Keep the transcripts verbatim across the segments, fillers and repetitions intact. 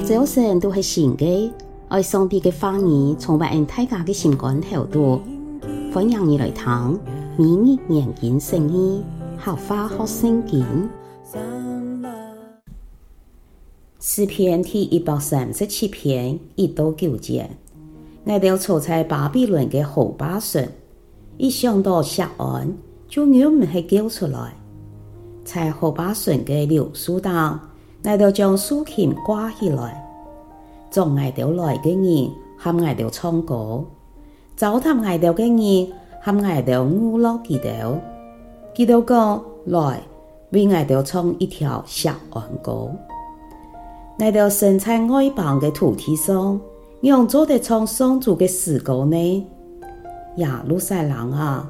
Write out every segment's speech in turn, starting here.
朝晨都係新个，愛上帝个話語充滿𠊎大家个心肝頭肚。歡迎你來聽每日研經釋義，客話學聖經。詩篇第一百三十七篇一到九節：𠊎兜坐在巴比倫个河壩脣，一想到錫安，就忍毋核噭出來。在河壩脣个柳樹頂，𠊎兜將豎琴掛起來。捉𠊎兜來个人喊𠊎兜唱歌， 糟蹋𠊎兜个人喊𠊎兜娛樂佢兜。佢兜講：「來，為𠊎兜唱一條錫安歌。」𠊎兜生在外邦个土地上，仰做得唱上主个詩歌呢？耶路撒冷啊，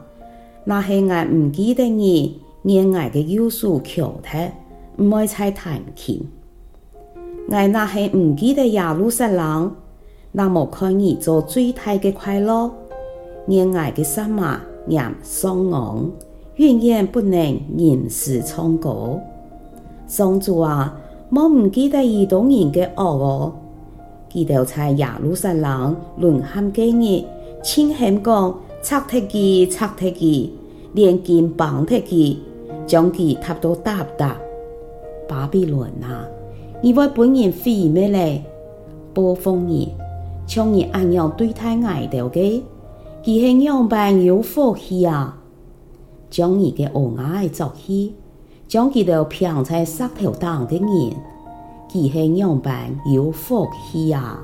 若係𠊎毋記得你，願𠊎个右手翹忒，毋愛再彈琴。 𠊎若係毋記得耶路撒冷，若無看你做最大个快樂，願𠊎个舌嫲黏上齴，永遠不能吟詩唱歌。上主啊，莫毋記得以東人个惡哦！佢兜在耶路撒冷懍喊个日，盡喊講：「拆忒佢，拆忒佢！」 連根挷忒佢，將佢踏到嗒嗒。巴比倫啊，你會分人毀滅咧！報復你，像你恁樣對待𠊎兜个，佢係仰般有福氣啊！將你个蚵仔仔捉去，將佢兜摒在石頭頂个人，佢係仰般有福氣啊！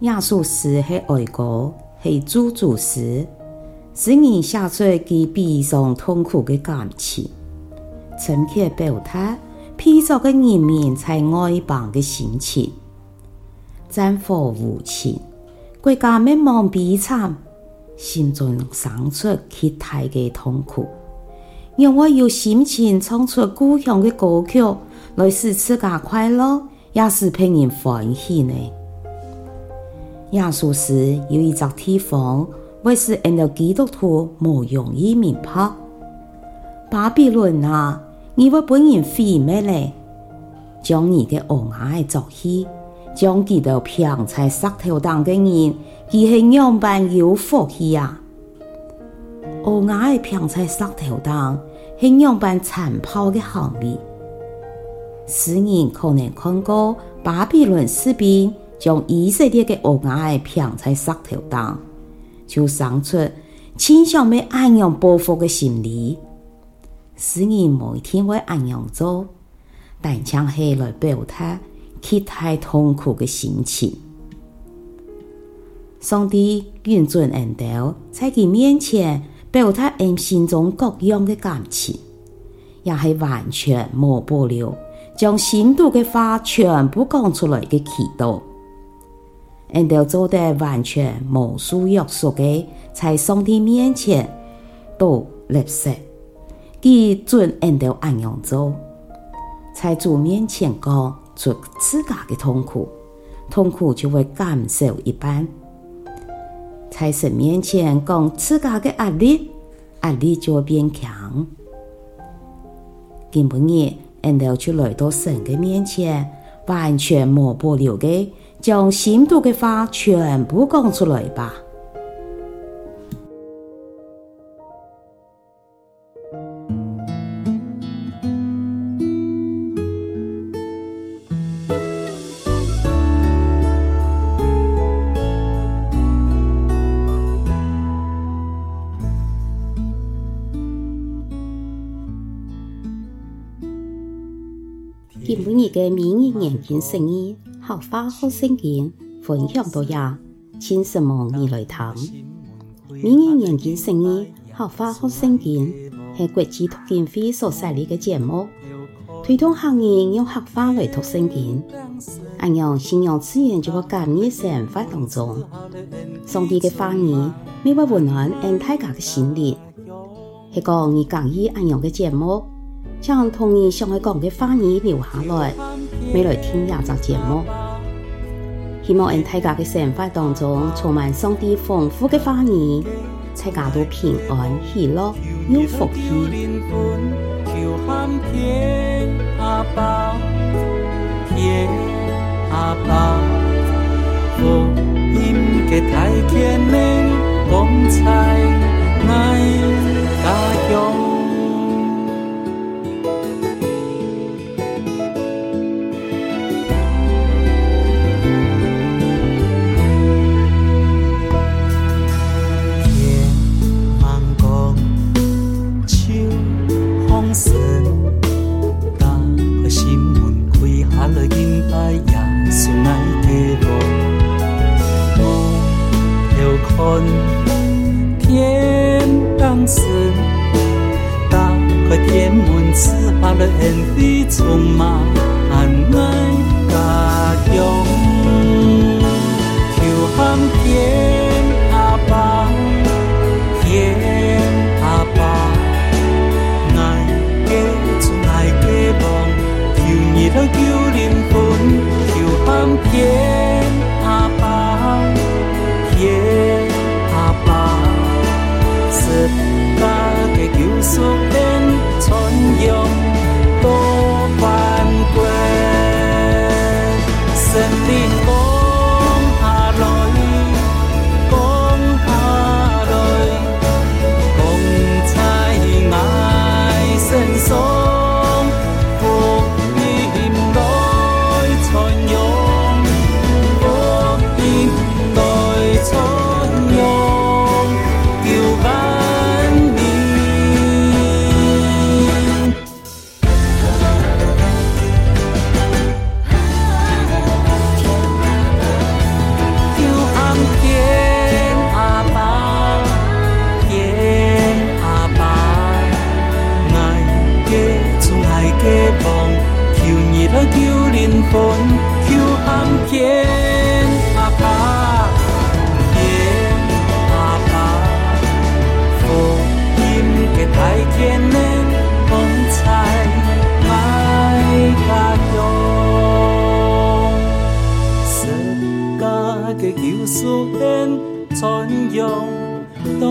這首詩係哀歌，係咒詛詩。詩人寫出佢悲傷痛苦个感情，深刻表達被逐个人民在外邦个心情。戰火無情，國家滅亡悲慘，心中生出極大个痛苦。仰會有心情唱出故鄉个歌曲，來使自家快樂， 也使別人歡喜呢？這首詩有一隻地方，會使𠊎兜基督徒無容易明白：「巴比倫啊，你會分人毀滅咧！將你个蚵仔仔捉去，將佢兜摒在石頭頂个人，佢係仰般有福氣啊！」 蚵仔仔摒在石頭頂，係仰般殘暴个行為。詩人可能看過巴比倫士兵將以色列个蚵仔仔摒在石頭頂，就生出盡想愛恁樣報復个心理。詩人無一定會恁樣做， 單淨係來表達極大痛苦个心情。上帝允准𠊎兜在佢面前表達𠊎心中各樣个感情，也係完全無保留，將心肚个話全部講出來个祈禱。 𠊎兜做得完全無受約束个，在上帝面前倒垃圾。佢准𠊎兜恁樣做，在主面前講出自家个痛苦，痛苦就會減少一半。在神面前講自家个壓力，壓力就會變輕。今晡日，𠊎兜就來到神个面前，完全無保留个，將心肚个話全部講出來吧。 今晡日个每日研經釋義，客話學聖經，分享到這，請承蒙你來聽。 每日研經釋義，客話學聖經，係國際讀經會所設立个節目，推動客人用客話來讀聖經。恁樣，信仰自然就會加入生活當中。上帝个話語乜會溫暖𠊎大家个心靈。係講你合意恁樣个節目， 請同你想愛講个話語留下來，乜來聽這隻節目。希望𠊎大家个生活當中充滿上帝豐富个話語，大家都平安、喜樂、有福氣。阿爸，福音个大權能，光彩𠊎家鄉。 天吂光，就放聲，打開心門，跪下來敬拜耶穌𠊎个王。目標看天頂神， 打開天門，賜下了恩惠，充滿𠊎家鄉。求喊天阿爸，天阿爸，𠊎个主，𠊎个王，求你來救靈魂。求喊天阿爸， 天阿爸，十架个救贖恩，傳揚到萬國。聖靈降下來，降下來， 光彩𠊎身上，福音來傳揚，福音來傳揚，救萬民。 求喊天阿爸，天阿爸，𠊎个主，𠊎个王，求你來救靈魂。求喊天阿爸，天阿爸，福音个大權能，光彩𠊎家鄉。 十架个救贖恩，傳揚到